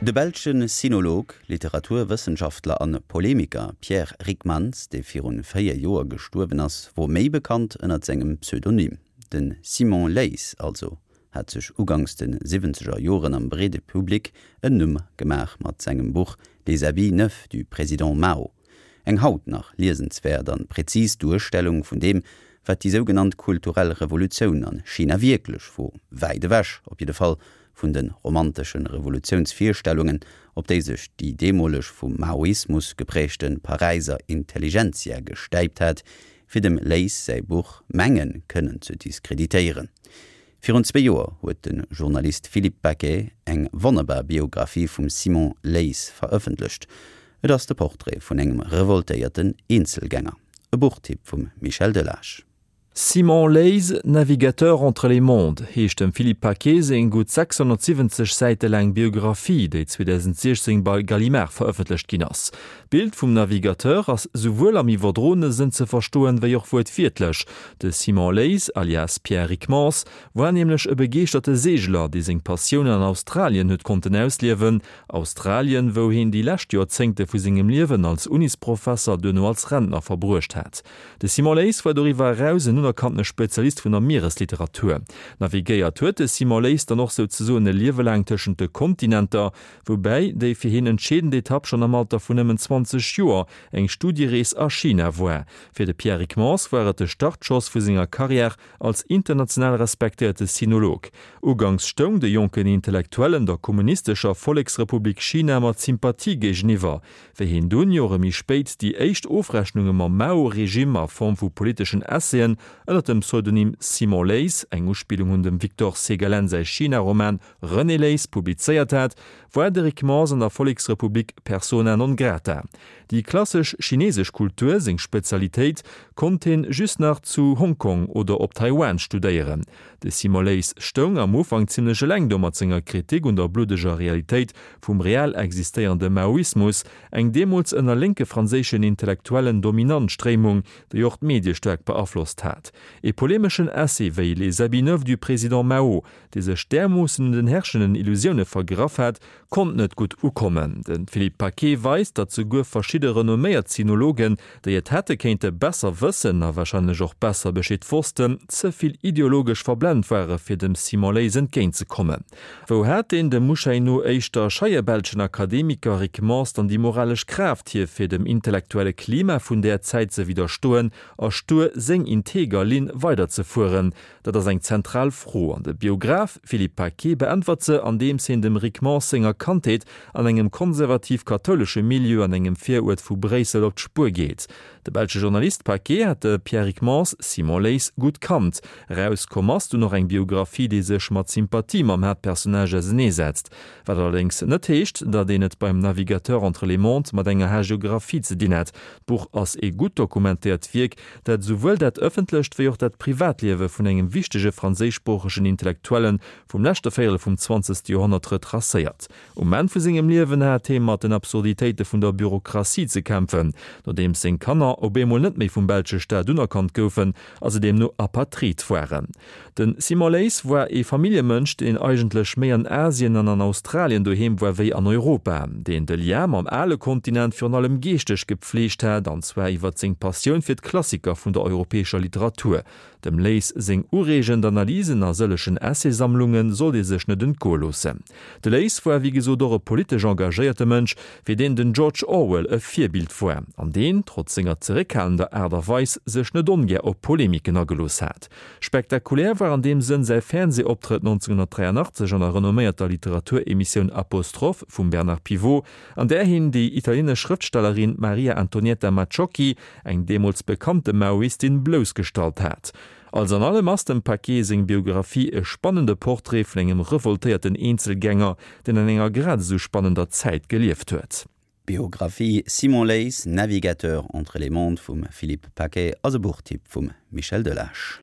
De belsche Sinolog, Literaturwëssenschaftler an Polemiker Pierre Ryckmans, dee virun 4 Joer gestuerwen ass, wor méi bekannt ënnert sengem Pseudonym. De Simon Leys also hat sech uganks de siwwenzeger Joren am breede Public en Numm gemaach mat sengem Buch Les habits neufs du président Mao. Eng haut nach liesenswäert an präzis Duerstellung vun deem, wat déi sougenannt kulturell Revolutioun an China wierklech wor, wäit ewech op jidde Fall vun de romantesche Revolutiounsvirstellungen, op déi sech déi deemoleg vum Maoismus geprägte Paräiser Intelligentsia gestäipt hat, fir dem Leys säi Buch menge kënnen ze diskreditéieren. Virun zwee Joer huet de Journalist Philippe Paquet eng wonnerbar Biographie vum Simon Leys verëffentlecht. Et ass de Portrait vun engem revoltéierten Eenzelgänger. E Buchtipp vum Michel Delage. Simon Leys, Navigateur entre les mondes heescht dem Philippe Paquet seng gutt 670 Säite laang Biographie, déi 2016 bei Gallimard verëffentlecht ginn ass. D'Bild vum Navigateur ass souwuel am iwwerdroene Sënn ze verstoen, wéi och wuertwiertlech. De Simon Leys, alias Pierre Ryckmans, war nämlech e begeeschterte Seegler, dee seng Passioun an Australien huet konnten ausliewen, Australien, wou heen déi lescht Joerzéngte vu sengem Liewen als Unisprofesser, duerno als Rentner verbruecht hat. De Simon Leys war doriwwer eraus en unerkanntene Spezialist vun der Mieresliteratur. Navigéiert huet de Simon Leys dann och souzesoen e Liewe laang tëschent de Kontinenter, woubäi déi fir hien entscheedend Etapp schonn am Alter vun nëmmen 20 Joer eng Studierees a China war. Fir de Pierre Ryckmans war et de Startschoss vu senger Karriär als international respektéierte Sinolog. Uganks stoung de jonken Intellektuellen der kommunistescher Volleksrepublik China mat Sympathie géigeniwwer. Wéi hien dunn, Jore méi spéit, déi éischt Ofrechnunge mam Mao-Regime a Form vu politeschen Essaien ënner dem Pseudonym Simon Leys, eng Uspillung un dem Victor Segalen säi China-Roman René Leys, publizéiert hat, war de Rick Mors an der Volleksrepublik persona non grata. Déi klassesch chinesesch Kultur, seng Spezialitéit, konnt hien just nach zu Hongkong oder op Taiwan studéieren. De Simon Leys stoung am Ufank zimmlech eleng do mat senger Kritik un der bluddeger Realitéit vum real existéierende Maoismus, eng deemools ënner lénke franséischen Intellektuellen dominant Stréimung, déi och d'Medie staark beaflosst hat. E polemeschen Essai wéi Les habits neufs du président Mao, dee sech därmoossen un den herrschenden Illusioune vergraff hat, konnt net gutt ukommen. De Philippe Paquet weist, datt souguer verschidde renomméiert Sinologen, déi et hätte kéinte besser wëssen a warscheinlech och besser Bescheed wossten, ze vill ideologesch verblent ware fir dem Simon Leys entgéintzekommen. Wou hat deen dem Muschei no éischter scheie belschen Akademiker Rick Mors dann déi moralesch Kraaft hier fir dem intellektuelle Klima vun där Zäit ze widderstoen a stur seng integer Linn weiderzefueren? Dat ass eng zentral Fro, an de Biograph Philippe Paquet beäntwert se, andeems hien dem Rick Mors senger Kandheet an engem konservativ-kathoulesche Milieu an engem Viruert vu Bréissel op d'Spuer geet. De belsche Journalist Paquet hat de Pierre Ryckmans, Simon Leys, gutt kannt. Erauskomm ass dunn och eng Biographie, déi sech mat Sympathie mam Haaptpersonnage auseneesetzt. Wat allerdéngs net heescht, datt een et beim Navigateur entre les mondes mat enger Hagiographie ze dinn hätt. D'Buch ass ee gutt dokumentéiert Wierk, dat esouwuel dat ëffentlecht wéi och dat Privatliewe vun engem wichtege franséischsproochegen Intellektuelle vum leschte Véierel vum zwanzegste Joerhonnert retracéiert. Um Enn vu sengem Liewen hat hee mat den Absurditéite vun der Bürokratie ze kämpfen, nodeems seng Kanner op eemol net méi vum belsche Staat unerkannt goufen a se deemno Apatrid waren. De Simon Leys war ee Familljemënsch, deen eigentlech méi an Asien an an Australien doheem war wéi an Europa, deen de Lien mam ale Kontinent virun allem geeschteg gepfleegt hat, an zwar iwwer seng Passioun fir d'Klassiker vun der europäescher Literatur. Dem Leys seng ureegend Analysen a sëllechen Essaysammlunge sollt ee sech net entgoe loossen. De Leys war wéi gesot och e politesch engagéierte Mënsch, fir deen den George Orwell e Virbild war, an deen, trotz senger zeréckhalender Aart a Weis, sech net ongär op Polemiken agelooss hat. Spektakulär war an deem Sënn säi Fernsehoptrëtt 1983 an der renomméierter Literaturemissioun Apostroph vum Bernard Pivot, an där hien déi italienesch Schrëftstellerin Maria Antonietta Macciocchi, eng deemools bekannte Maoistin, bloussgestallt hat. Alles an allem ass dem Paquet seng Biographie e spannende Portrait vun engem revoltéierten Eenzelgänger, deen an enger grad esou spannender Zäit gelieft huet. D'Biographie Simon Leys, Navigateur entre les mondes vum Philippe Paquet ass e Buchtipp vum Michel Delage.